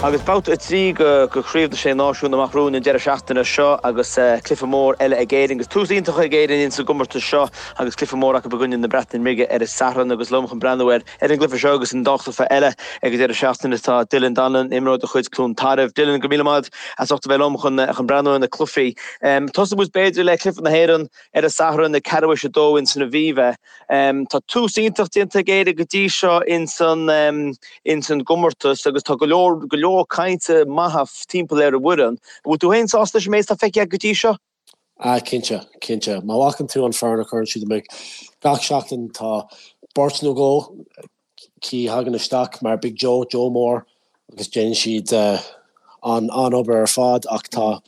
Agus babhta 3 de Chraobh na Sé Náisiún amach romhainn an deireadh seachtaine seo agus cluiche mór eile ag Éirinn agus tús iontach ag Éirinn ins an gcomórtas seo agus cluiche mór acu i gcoinne na Breataine Bige ar an Satharn agus liom chun breathnú ar ar an gcluiche seo agus an dá chluiche eile ag an deireadh seachtaine tá Dylan Donlon, imreoir de chuid Cluain Tarbh. Dylan, go raibh míle maith as ucht a bheith liom chun chun breathnú ar na cluichí. Tosóidh muid b'fhéidir le cluiche na hÉireann ar an Satharn ag ceathrú tar éis a dó ins an Aviva. Tá tús iontach déanta ag Éire go dtí seo ins an ins an gcomórtas agus tá go leor go leor cainte maithe timpeall ar an bhfoireann. An bhfuil tú féin sásta leis an méid atá feicthe agat go dtí seo? Ah cinnte, cinnte. Má fheiceann tú an foireann a chuireann siad amach gach seachtain tá beirt nó dhó acu a thagann isteach mar Big Joe, Joe Moore agus déanann siad an an-obair ar fad ach tá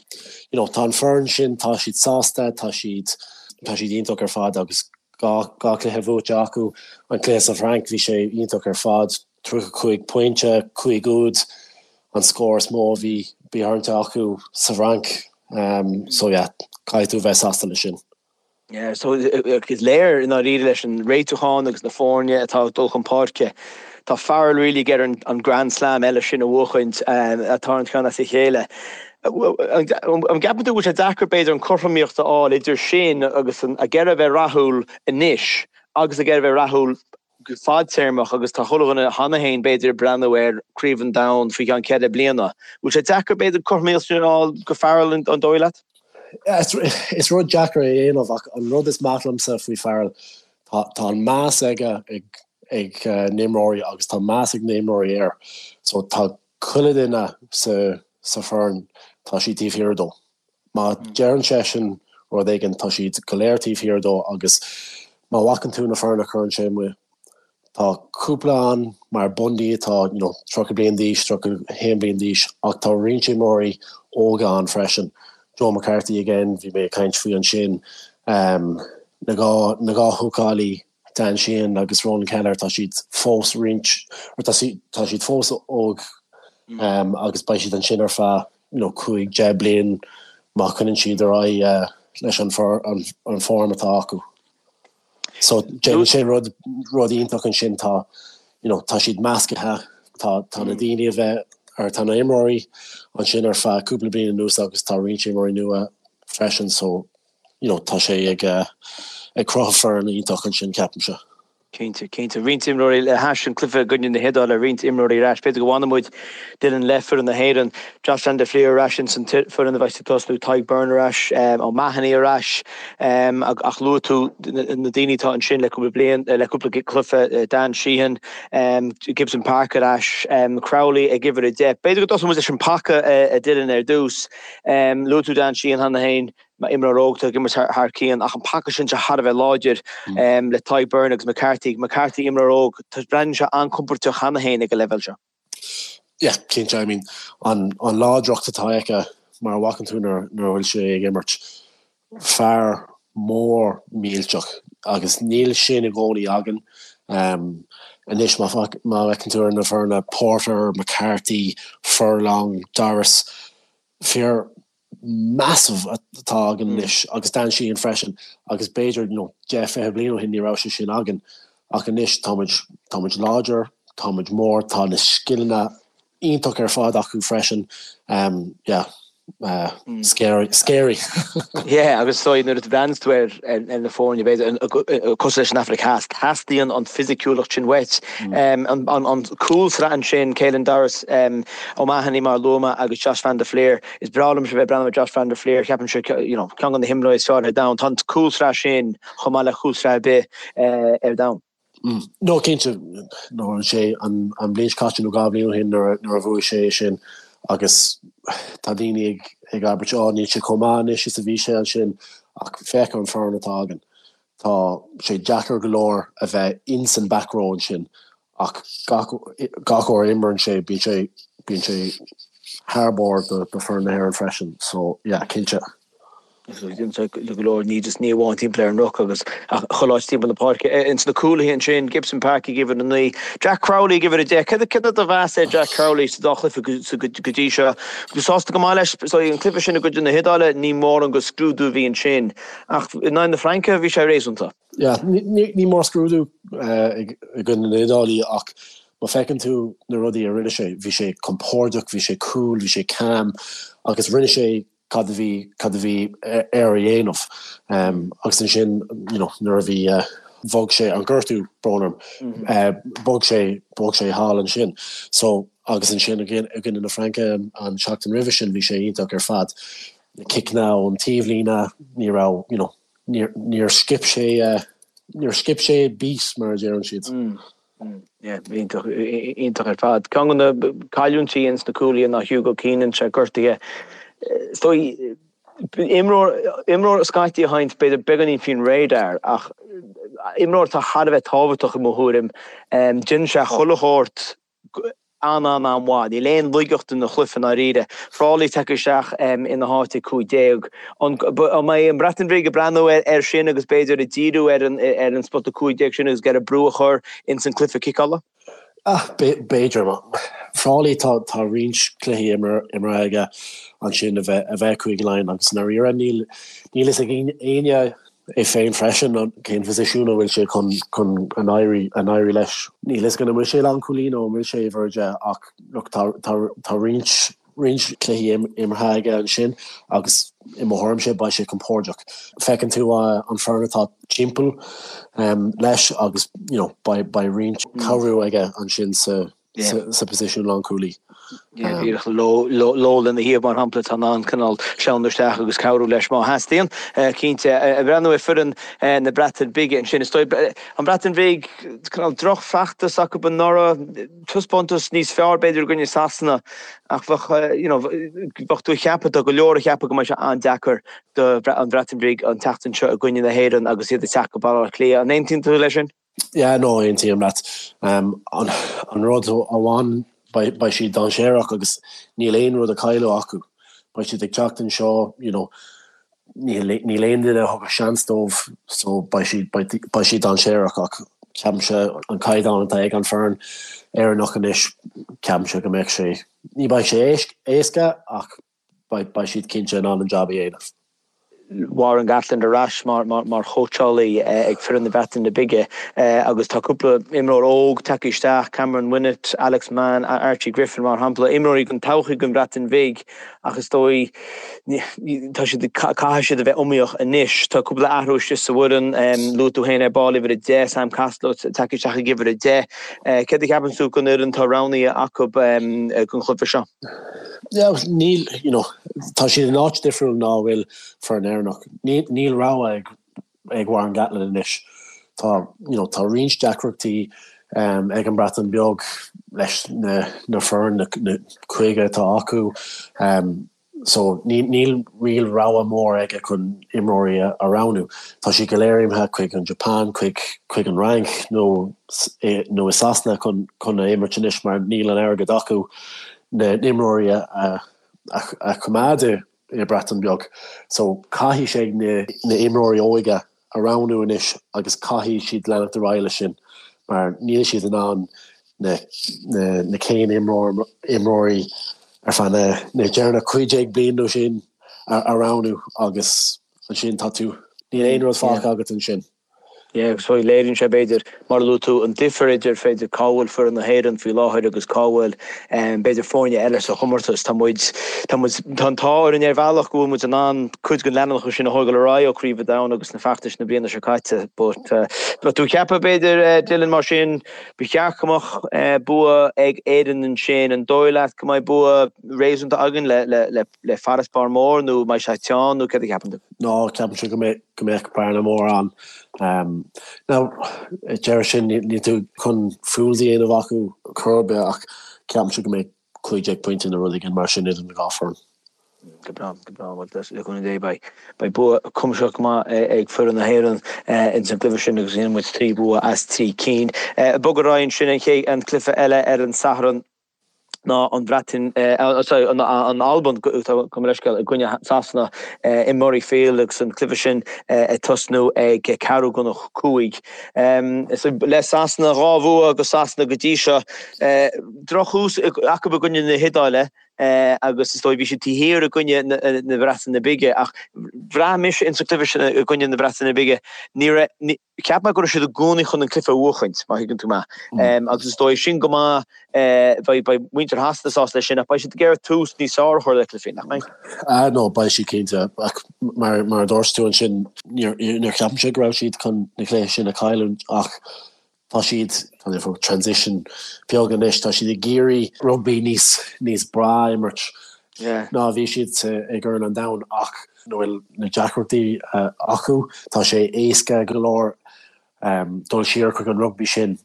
you know tá an foireann sin tá siad sásta, tá siad tá siad iontach ar fad agus dá dá chluiche buaite acu. An cluiche sa Bhfrainc bhí sé iontach ar fad, 35 pointe, 5 úd an scór is mó a bhí bhí tarraingthe acu sa bhFrainc so yeah caithfidh tú a bheith sásta leis sin. Yeah, so is léir i ndáiríre leis an réitiúchán agus na foirne atá ag dul chun páirce, tá Farrell really ag iarraidh an Grand Slam eile sin a bhuachaint atá an ceann as a chéile. An gceapann tú go bhfuil sé deacair b'fhéidir an cothromaíocht a fháil idir sin agus ag iarraidh a bheith rathúil anois agus ag iarraidh a bheith rathúil go fadtéarmach agus tá chuile dhuine cheana féin b'fhéidir ag breathnú ar Craobh an Domhain faoi cheann ceithre bliana. Bhfuil sé deacair b'fhéidir cothromaíocht sin a fháil go Farrell an dóigh leat? Is rud deacair é a dhéanamh ach an rud is maith liomsa faoi Farrell tá tá an meas aige ag ag na himreoirí agus tá meas ag na himreoirí air so tá chuile duine sa sa foireann tá siad taobh thiar dó. Má deireann seisean rud éigin, tá siad go léir taobh thiar dó agus má fheiceann tú na foireann a chuireann sé amuigh, tá cúpla ann mar Bundee atá you know 30 bliain d'aois, 31 bliain d'aois ach tá roinnt imreoirí óga ann freisin. Joe McCarthy again, bhí mé ag caint faoi ansin, na dhá na dhá húcálaí Dan Sheehan agus Ronan Kelleher, tá siad fós roinnt, or tá siad, tá siad fós óg agus beidh siad ansin ar feadh, you know, 5, 10 bliain má choinníonn siad ar aghaidh leis an an form atá acu. So déanann sé rud, rud iontach ansin, tá, you know, tá siad meascaithe, tá, tá na daoine a bheith, or tá na imreoirí ansin ar feadh cúpla bliain anuas agus tá roinnt imreoirí nua freisin so you know, tá sé ag ag cruthú foireann iontach ansin, ceapaimse. Cinnte, cinnte. Roinnt imreoirí le hais an cluiche i gcoinne na hIodáile, roinnt imreoirí ar ais. B'fhéidir go bhfanfaidh muid Dylan le foireann na hÉireann. Josh van der Flier ar ais ins an foireann a bheas ag tosnú, Tadhg Beirne ar ais, O'Mahony ar ais. Ach luaigh tú na daoine atá ansin le cúpla bliain, le cúpla cluiche, Dan Sheehan, Gibson Park ar ais, Crowley ag uimhir 10. B'fhéidir go dtosóidh muid leis an paca a Dylan ar dtús. Luaigh tú Dan Sheehan cheana féin. Mar imreoir óg atá ag imirt thar cionn ach an paca sin sé thar a bheith láidir le Tadhg Beirne agus McCarthy. McCarthy imreoir óg, breathnaíonn sé an-compordach cheana féin ag an leibhéal seo. Yeah, cinnte. I mean, an an láidreacht atá aige mar a bhfeiceann tú nuair nuair a bhfuil sé ag imirt, fear mór millteach agus níl sin i gcónaí againn. Anois má má fheiceann tú ar na foirne Porter, McCarthy, Furlong, Doris, fir massive atá againn anois agus Dan Sheehan freisin agus b'fhéidir you know 10, 20 bliain ó shin ní raibh sé sin againn ach anois tá muid, tá muid láidir, tá muid mór, tá na scileanna iontach ar fad acu freisin yeah scary, scary. Yeah agus so nuair a bhreathnaíonn tú ar ar na foirne b'fhéidir cosúil leis an Afraic Theas, teastaíonn an fisiciúlacht sin uait. An an cúlsraith ansin, Caelan Doris, O'Mahony mar a luaigh mé agus Josh van der Flier, Is breá liomsa bheith ag breathnú ar Josh van der Flier, ceapaimse, you know, ceann de na himreoirí is fearr ar domhan. Tá an cúlsraith sin chomh maith le cúlsraith ar bith ar domhan. No, cinnte, no, an sé an an bhliain seo caite nó dhá bhliain ó shin nuair a nuair a bhuaigh sé é sin agus tá daoine ag ag abairt oh níl sé chomh maith anois is a bhí sé ansin ach féach ar an foireann atá againn. Tá sé deacair go leor a bheith ins an back row ansin Ach gach gach uair a imríonn sé, bíonn sé bíonn sé thar barr do do foireann na hÉireann freisin. So yeah, cinnte. Déanann sé go leor, ní just ní amháin timpeall ar an ruc agus ach chuile áit timpeall na páirce. Ins na cúlaithe ansin, Gibson Park ag uimhir 9, Jack Crowley ag uimhir 10. Céard céard é do mheas ar Jack Crowley sa dá chluiche go go go dtí seo? Sásta go maith leis? So an cluiche sin i gcoinne na hIodáile, ní mórán de scrúdú a bhí ansin ach in aghaidh na Fraince bhí sé réasúnta. Yeah, ní mór scrúdú i gcoinne na hIodáile ach Má feiceann tú na rudaí a rinne sé, bhí sé compordach, bhí sé cool, bhí sé calm agus rinne sé cad a bhí, cad a bhí air a dhéanamh. Agus ansin, you know, nuair a bhí, bhog sé, an gortú, brón orm, bhog sé, bhog sé thall ansin. So, agus ansin i gcoinne na Fraince an tseachtain roimhe sin, bhí sé iontach ar fad. Na ciceanna ón taobhlíne, ní raibh, you know, níor, níor skip sé, níor skip sé beat, mar a deireann siad. Yeah, iontach, iontach ar fad. Ceann de na cailliúintí ins na cúlaithe ná Hugo Keenan, sé gortaithe. Is dóigh, imreoir, imreoir scaití a théann b'fhéidir beagáinín faoin radar ach imreoir atá thar a bheith tábhachtach i mo thuairim. Déanann sé chuile shórt an-an-an-mhaith. Níl aon laigeacht ina chluiche i ndáiríre. Frawley tagtha isteach ina háit ag 15. An mbeidh an Bhreatain Bhig ag breathnú air sin agus b'fhéidir ag díriú ar an spota 15 sin agus ag iarraidh brú a chur ins an cluiche ciceála? B'fhéidir. Frawley tá roinnt cluichí imeartha aige ansin a bheith Cúige Laighean agus i ndáiríre níl fhios ag éinne é féin freisin cén phosisiún a bhfuil sé chun chun an éirí an éirí leis. Níl fhios agam an bhfuil sé lánchúlaí nó an bhfuil sé uimhir 10 ach look tá tá tá roinnt roinnt cluichí imeartha aige ansin agus i mo thuairimse beidh sé compordach. Feiceann tú an foireann atá timpeall leis agus you know beidh beidh roinnt cabhrú aige ansin sa sa position lánchúlaí. Díreach Lowe lena thaobh mar shampla, atá in ann cineál sleamhnú isteach agus cabhrú leis má theastaíonn. Cinnte, ag breathnú ar foireann na Breataine Bige ansin, is dóigh, an Bhreatain Bhig, cineál drochfheachtas acu anuraidh, taispeántas níos fearr b'fhéidir i gcoinne Sasana ach bheadh, you know, bheadh tú ag ceapadh, tá go leor ag ceapadh go mbeidh sé an-deacair do an Bhreatain Bhig an tseachtain seo i gcoinne na hÉireann agus iad ag teacht go Baile Átha Cliath. An aontaíonn tú leis sin? Yeah, no, aontaím leat. An rud amháin, beidh siad dainséarach agus níl aon rud a cailleadh acu. Beidh siad ag teacht anseo, you know, níl aon duine a thugadh seans dóibh so beidh siad, beidh siad dainséarach ach ceapaimse an caighdeán atá ag an foireann Éireannach anois, ceapaimse go mbeidh sé, ní beidh sé éasca ach beidh siad cinnte in ann an jab a dhéanamh. Warren Gatland ar ais mar chóitseálaí ag foireann na Breataine Bige agus tá cúpla imreoir óg tagtha isteach, Cameron Winnett, Alex Mann, Archie Griffin mar shampla, imreoirí don todhchaí don Bhreatain Bhig ach is dóigh tá siad, caithfidh siad a bheith iomaíoch anois. Tá cúpla athrú istigh sa bhfoireann, luaigh tú féin ar ball uimhir 10, Sam Costelow tagtha isteach ag uimhir 10. Céard a cheapann tú den fhoireann atá roghnaithe acu don chluiche seo? Yeah, níl, you know, tá siad in áit difriúil ná a bhfuil foireann Éireannach. Níl, níl rogha ag, ag Warren Gatland anois. Tá, you know, tá roinnt deacrachtaí um, ag an Breatain Beag leis na, na foireann, na, na 50 atá acu. Um, so níl, níl real rogha mór aige chun imreoirí a, a roghnú. Tá siad go léir imithe chuig an Japan, chuig, chuig an Fhrainc nó, nó i Sasana chun, chun a imirt anois mar níl an airgead acu. na n-imreoirí a choimeád i Breatain Beag. So caithfidh sé na imreoirí óige a roghnú anois agus caithfidh siad leanacht ar aghaidh leis sin mar níl siad in ann na na céan imreoirí ar feadh na na deireanach 15 bliain nó sin a roghnú agus ansin tá tú níl aon rud fágtha agat ansin. Yeah, agus léiríonn sé, b'fhéidir, mar a luaigh tú, an difear idir, b'fhéidir, cá bhfuil foireann na hÉireann faoi láthair agus cá bhfuil, b'fhéidir, foirne eile sa chomórtas. Tá muid, tá muid, tá an t-ádh orainn ar bhealach go bhfuil muid in ann cuid den leanúnachas sin a thógáil ar aghaidh ó Chraobh an Domhain agus na feachtais na bliana seo caite. But, tá tú ag ceapadh, b'fhéidir, Dylan, mar sin, ba cheart go mbeadh bua ag Éirinn ansin. An dóigh leat go mbeidh bua réasúnta againn le, le, le, le farasbarr mór nó mbeidh sé teann nó céard a cheapann tú? Ná, ceapaimse go mbeidh go mbeadh bearna mór ann. Now, deireadh sin níl tú chun fools a dhéanamh acu chor ar bith ach ceapaimse go mbeidh 15 pointe nó rud éigin mar sin idir na dhá foireann. Go breá, go breá. Bhuel, le cúnamh Dé beidh beidh bua cuimsitheach go maith ag foireann na hÉireann ins an gcluiche sin agus déanfaidh muid 3 bhua as 3 cinn. Bog ar aghaidh ansin an chéad an cluiche eile ar an Satharn. ná an Bhreatain, sorry, an Albain, gabh mo leithscéal, i gcoinne Sasana i Murrayfield agus an cluiche sin ag tosnú ag ceathrú chun a 5. Le Sasana, 2 bhua go Sasana go dtí seo. Drochthús acu i gcoinne na hIodáile. Agus is dóigh bhí siad taobh thiar i gcoinne na Breataine Bige ach bhraith mise ins an cluiche sin i gcoinne na Breataine Bige, ní raibh, cheap mé go raibh siad i gcónaí chun an cluiche a bhuachaint, má thuigeann tú mé. Agus is dóigh sin go maith, beidh, beidh muintir Shasana sásta leis sin ach beidh siad ag iarraidh tús níos fearr a chur le cluichí, nach mbeidh? Ah no, beidh siad cinnte ach mar, mar a dúirt tú ansin, níor, níor cheapfainn go raibh siad chun na cluiche sin a chailliúint ach Tá siad, tá siad faoi transition beag anois, tá siad ag iarraidh rugbaí níos, níos breá a imirt ná a bhí siad sa, i gCorn an Domhain ach nuair bhfuil na deacrachtaí acu, tá sé éasca go leor dul siar chuig an rugbaí sin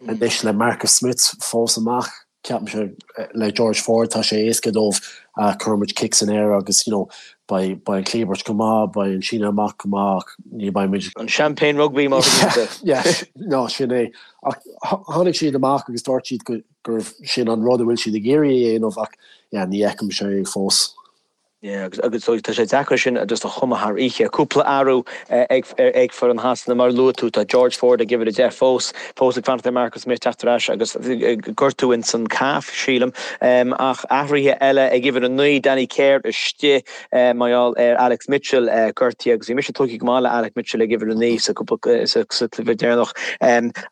anois le Marcus Smith fós amach. Ceapaimse le George Ford tá sé éasca dóibh cuirfidh muid cic san aer agus you know beidh beidh an cliabhairt go maith, beidh an síneadh amach go maith ach ní beidh muid. An champagne rugby mar a bhíonn. Yeah, no sin é. Ach tháinig siad amach agus dúirt siad go gurbh sin an rud a bhfuil siad ag iarraidh a dhéanamh ach yeah ní fheicimse é fós. Yeah, agus agus tá sé deacair sin just a chumadh thar oíche. Cúpla athrú ag ag foireann Shasana mar a luaigh tú, tá George Ford ag uimhir 10 fós, fós ag fanacht ar Marcus Smith teacht ar ais agus gortú ins an calf, sílim. Ach athruithe eile ag uimhir 9, Danny Care istigh mar gheall ar Alex Mitchell gortaithe agus bhí mise tógtha go maith le Alex Mitchell ag uimhir 9 sa cúpla sa cluiche deireanach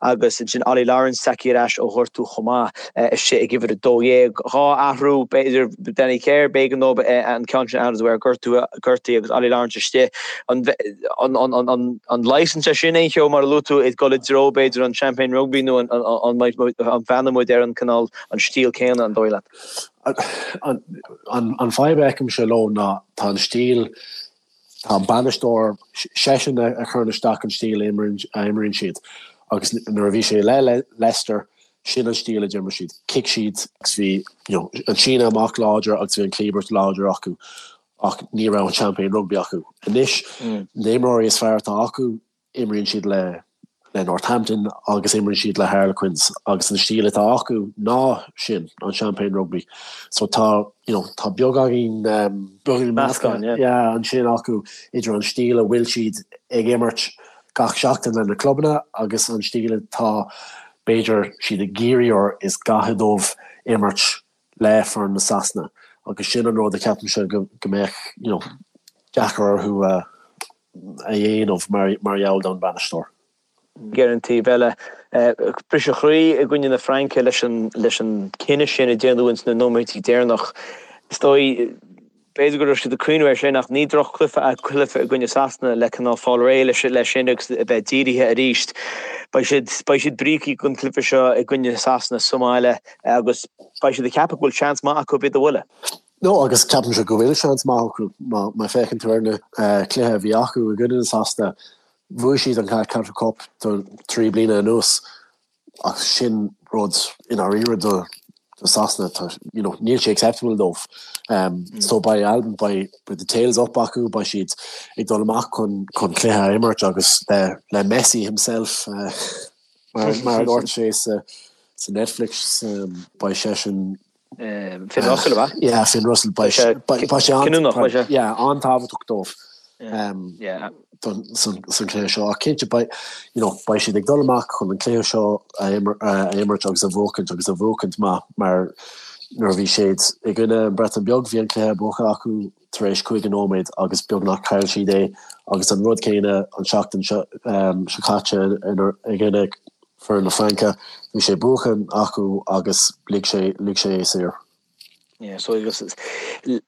agus ansin Ollie Lawrence tagtha ar ais ó ghortú chomh maith. istigh ag uimhir 12. 2 athrú, b'fhéidir, Danny Care, b'éigean dóibh an ceann sin a athrú de bharr gortú, gortaithe agus Ollie Lawrence istigh. An leigheasann sé sin aon cheo mar a luaigh tú, ag dul i dtreo, b'fhéidir, an Champagne Rugby nó an bhfanfaidh muid ar an cineál, an stíl céanna, an dóigh leat? An fadhb a fheicimse leo ná tá an stíl Tá an bainisteoir, seisean a chuireann isteach an stíl a imríonn siad agus nuair a bhí sé le Leicester, sin an stíl a d'imir siad. Chic siad agus bhí you know an síneadh amach láidir agus bhí an cliabhairt láidir acu ach ní raibh an champagne rugby acu. Anois, na himreoirí is fearr atá acu, imríonn siad le le Northampton agus imríonn siad le Harlequins agus an stíl atá acu ná sin, an Champagne Rugby. So tá, you know, tá beagáinín, beagáinín meascán, yeah, ansin acu idir an stíl a bhfuil siad ag imirt gach seachtain le na clubanna agus an stíl atá b'fhéidir siad ag iarraidh or is gá dóibh imirt le foireann na Sasana agus sin an rud a cheapaimse go mbeadh, you know, deacair orthu a a dhéanamh mar gheall don bhainisteoir. Ar an taobh eile, briseadh croí i gcoinne na Fraince leis an leis an cinneadh sin a déanadh ins na nóiméidí deireanach. Is dóigh, b'fhéidir go raibh siad ag cuimhneamh air sin ach ní droch-chluiche é cluiche i gcoinne Sasana le cineál fáil réidh leis leis sin agus a bheith dírithe arís. Beidh siad beidh siad brící don chluiche seo i gcoinne Sasana sa mbaile agus beidh siad ag ceapadh go bhfuil seans maith acu iad a bhualadh. No, agus ceapaimse go bhfuil seans maith acu. Má féachann tú ar na cluiche a bhí acu i gcoinne na Sasana, bhuaigh siad an Calcutta Cup do 3 bliana anuas ach sin rud i ndáiríre do Sasana, tá, you know, níl sé acceptable dóibh. So beidh Albain, beidh the tails up acu, beidh siad ag dul amach chun chun cluiche a imirt agus le le Messi himself, mar mar a dúirt sé sa sa Netflix, beidh seisean Finn Russell, ab ea? Yeah, Finn Russell. Beidh sé cinniúnach, beidh sé. Yeah, an-tábhachtach dóibh san cluiche seo. Ach cinnte, beidh, you know, beidh siad ag dul amach chun an cluiche seo a imirt agus a bhuachaint agus a bhuachaint maith mar nuair a bhí siad i gcoinne an Breatain Beag bhí an cluiche buaite acu tar éis 50 nóiméad agus beagnach chaill siad é agus an rud céanna an seachtain seo caite i gcoinne foireann na Fraince, bhí sé buachan acu agus lig sé lig sé é saor. Yeah, so agus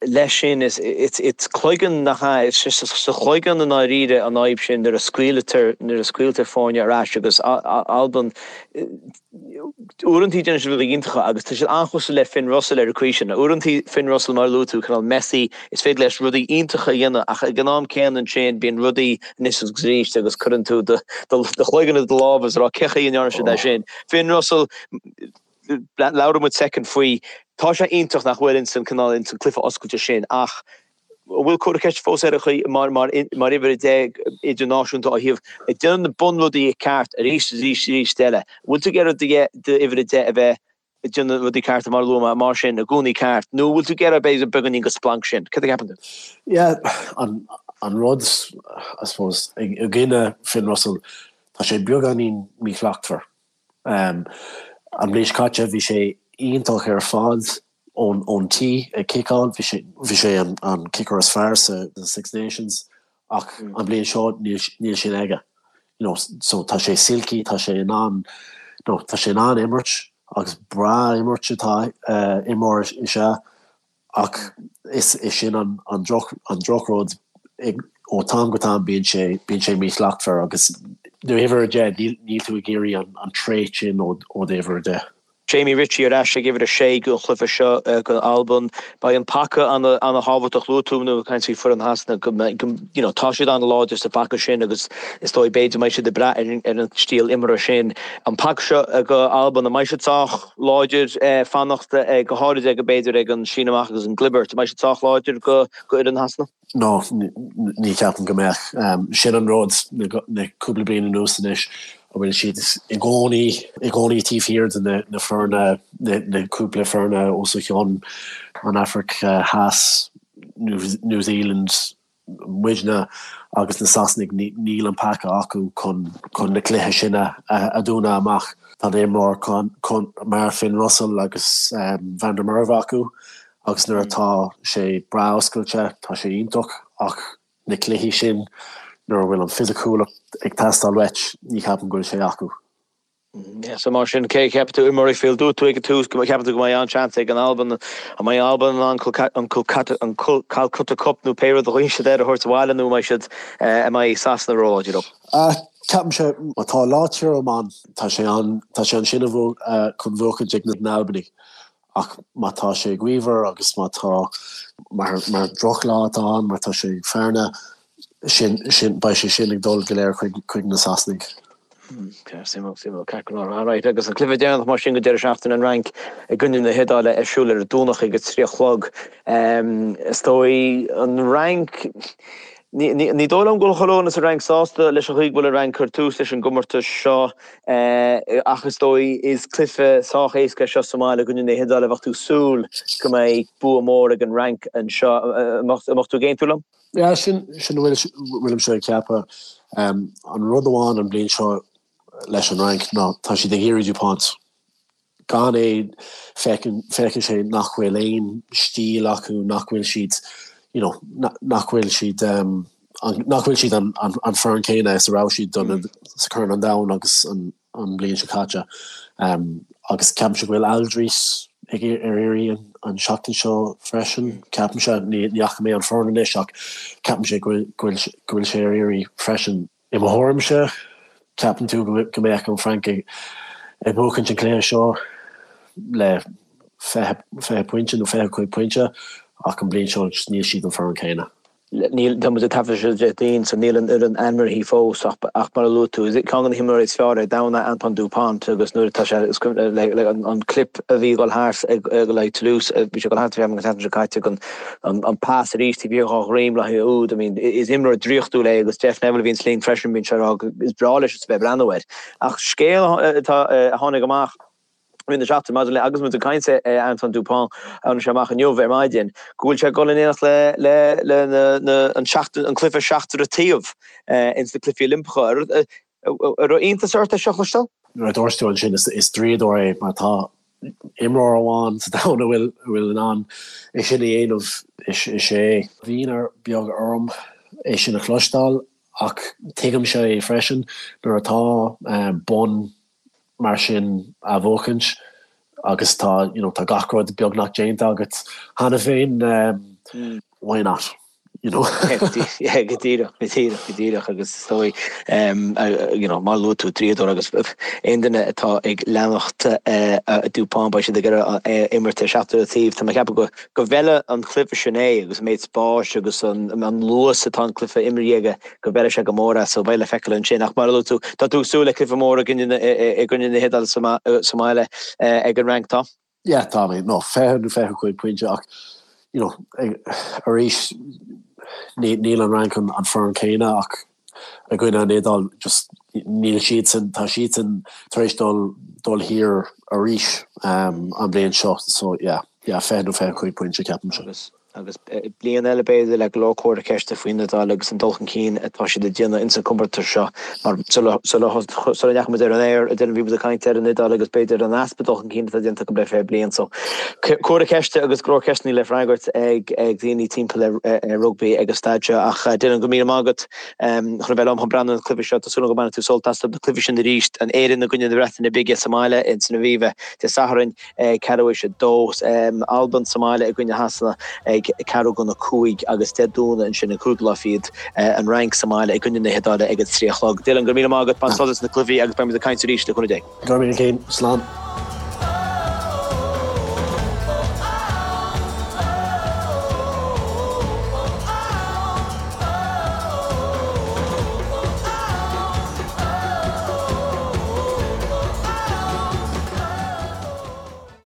leis sin is it's it's cloigeann nach ea, it's just sa chloigeann i ndáiríre an fhadhb sin nuair a scaoiltear nuair a scaoiltear foirne ar ais agus Albain uaireantaí déanann siad rudaí iontacha agus tá siad an-chosúil le Finn Russell ar an chaoi sin. Uaireantaí Finn Russell mar a luaigh tú cineál Messi is féidir leis rudaí iontacha a dhéanamh ach ag an am céanna ansin bíonn rudaí anois agus arís agus cuireann tú do chloigeann i do lámh is a rá cén chaoi a ndearna siad é sin. Finn Russell, labhróidh muid soicind faoi, tá sé iontach nach bhfuil ins an cineál ins an cluiche oscailte sin ach an bhfuil comhartha ceiste fós air an chaoi mar mar mar uimhir 10 idirnáisiúnta ó thaobh ag déanamh na bunrudaí ceart arís is arís arís eile. An bhfuil tú ag iarraidh d'uimhir 10 a bheith ag déanamh rudaí cearta mar a luaigh mé, mar sin, i gcónaí ceart, nó an bhfuil tú ag iarraidh b'fhéidir beagáinín de splanc sin? Cad a cheapann tú? Yeah, an, an rud, I suppose, i gcoinne Finn Russell, tá sé beagáinín míshlachtmhar. Um, an bhliain seo caite bhí sé iontach ar fad. ón ón tí ag ciceáil, bhí sé bhí sé an an kicker is fearr sa Six Nations ach an bhliain seo níl níl sin aige. You know, so tá sé silky, tá sé in ann you know, tá sé in ann imirt agus breá imirt atá imreoir is ea Ach is é sin an drochrud, ó tam go tam bíonn sé bíonn sé míshlachtmhar agus uimhir 10, níl tú ag iarraidh an trait sin ó d'uimhir 10. Jamie Ritchie ar ais ag uimhir 6 don chluiche seo do Albain. Beidh an paca ana-thábhachtach. Luaigh tú nuair a caint faoi foireann Shasana go mbeidh, you know, tá siad an-láidir sa bpaca sin agus is dóigh b'fhéidir go mbeidh siad ag brath ar an stíl imeartha sin. An paca seo do Albain, an mbeidh siad sách láidir fanacht, go háirid ag, b'fhéidir, ag an síneadh amach agus an gclibirt. An mbeidh siad sách láidir go fhoireann Shasana? No, ní cheapaim go mbeadh. Sin an rud, na cúpla bliain anuas anois, a bhfuil siad i gcónaí, i gcónaí taobh thiar de na foirne, na cúpla foirne os a chionn, an Afraic Theas, New Zealand, muidne agus na Sasanaigh, níl an paca acu chun na cluiche sin a dhúnadh amach. Tá imreoir mar Finn Russell agus Van der Merwe acu agus nuair atá sé breá oscailte tá sé iontach ach na cluichí sin nuair a bhfuil an fisiciúlacht ag teastáil uait ní cheapaim go bhfuil sé acu. So mar sin, cé a cheapann tú i Murrayfield? Dúirt tú ag an tús go gceapann tú go mbeidh an-seans ag an Albain. An mbeidh Albain in ann an Calcutta Cup nó pé rud a ghlaonn siad air a thabhairt abhaile nó an mbeidh siad, an mbeidh Sasana róláidir leo? Ceapaimse, má tá lá tirim ann, tá sé an, tá sé ansin chun bhuachaint ag na hAlbanaigh. Ach má tá sé gaofar agus má tá, mar, mar drochlá atá ann, má tá sé ag fearna, sin, sin, beidh sé sin ag dul go léir chuig, chuig na Sasanaigh. Suimiúil, suimiúil, ceart go leor. Alright, agus an cluiche deireanach mar sin go deireadh seachtaine an Fhrainc i gcoinne na hIodáile ar siúl ar an Domhnach ag a 3 a chlog. Is dóigh an Fhrainc, ní, ní, ní dóigh liom go bhfuil chuile dhuine sa Fhrainc sásta leis an chaoi go bhfuil an Fhrainc ag cur tús leis an gcomórtas seo. Ach is dóigh, is cluiche sách éasca é seo sa mbaile i gcoinne na hIodáile. Bheadh tú ag súil go mbeidh bua mór ag an Fhrainc anseo. An mbeadh tú ag aontú liom? Yeah, sin sin a bhfuilimse ag ceapadh. An rud amháin an bhliain seo leis an Fhrainc ná tá siad ag iarraidh Dupont. Gan é, feiceann feiceann sé nach bhfuil aon stíl acu, nach bhfuil siad, you know, nach bhfuil siad, nach bhfuil siad an an foireann céanna is a raibh siad don sa Corn an Domhain agus an an bhliain seo caite. Agus ceapaimse go bhfuil Alldritt ag ar iarraidh an an seachtain seo freisin, ceapaimse, ní ní fhaca mé an foireann anois ach ceapaimse go bhfuil go bhfuil go bhfuil sé ar iarraidh freisin. I mo thuairimse, ceapann tú go mbeadh an Fhrainc ag buachaint an cluiche seo le 20 pointe nó 25 pointe ach an bhliain seo níl siad an foireann céanna. Níl, tá muid ag taifeadh seo Déardaoin so níl an fhoireann ainmnithe fós ach mar a luaigh tú, is ceann de na himreoirí is fearr ar domhan é Antoine Dupont agus nuair atá sé, an clip a bhí ag dul thart ag le Toulouse, bhí sé ag dul thart an tseachtain seo caite an An pas arís taobh thiar dhá dhroim le haghaidh úd. I mean, is imreoir draíochtúil é agus Jeff Neville a bhíonn linn freisin, bíonn sé ag rá go is breá leis a bheith ag breathnú air. Ach scéal atá a tháinig amach i rith na seachtaine maidir le agus muid ag caint ar Antoine Dupont, tháinig sé amach inniu ar maidin, go bhfuil sé ag dul in éineacht le le le na na an seachtain an cluiche seachtar an taobh ins na Cluichí Oilimpeacha. An raibh iontas ort é seo a chloisteáil? Nuair a dúirt tú ansin is draíodóir é má tá imreoir amháin sa domhan a bhfuil a bhfuil in ann é sin a dhéanamh is é. Bhí ionadh beag orm é sin a chloisteáil ach tuigimse é freisin nuair atá bonn mar sin á bhuachaint agus tá you know tá gach rud beagnach déanta agat cheana féin why not? You know? Yeah, go díreach, go díreach, go díreach agus is dóigh you know mar a luaigh tú draíodóir agus aon duine atá ag leanacht Dupont beidh siad ag iarraidh é a imirt ar seachtar an taobh. Tá mé ag ceapadh go go bhfeilfeadh an cluiche sin é agus an méid spáis agus an an luas atá an cluiche imeartha aige go bhfeilfeadh sé go mór é so beidh le feiceáil ansin ach mar a luaigh tú tá tú ag súil le cluiche mór i gcoinne i gcoinne na hIodáile sa mbaile ag an Fhrainc tá? Yeah tá mé no 20 nó 25 pointe ach you know arís níl an Fhrainc an foireann céanna ach i gcoinne an Iodáil just níl siadsan tá siadsan tar éis dul dul thiar arís an bhliain seo so yeah yeah 20 nó 25 pointe ceapaimse. Agus bliain eile b'fhéidir le go leor comhartha ceiste faoin Iodáil agus an dul chun cinn atá siad ag déanamh ins an comórtas seo mar sula ndeachaigh muid ar an aer a Dylan bhí muid ag caint ar an Iodáil agus b'fhéidir an easpa dul chun cinn atá déanta acu le fiche bliain so comhartha ceiste agus go leor ceisteanna le freagairt ag daoine timpeall ar rugbaí ag an staid seo ach Dylan go míle maith agat chun a bheith liom chun breathnú ar na cluichí seo. Tá súil agam go mbainfidh tú sult as na cluichí sin arís, an Éirinn i gcoinne na Breataine Bige sa mbaile ins an Aviva Dé Sathairn ag ceathrú théis a dó, Albain sa mbaile i gcoinne Shasana ag ceathrú chun a cúig agus Dé Domhnaigh ansin an cúigiú lá fichead, an Fhrainc sa mbaile i gcoinne na hIodáile ag a trí a chlog. Dylan, go raibh míle maith agat, bain sult as na cluichí agus beidh muid ag caint arís le cúnamh Dé. Go raibh míle céin. Slán.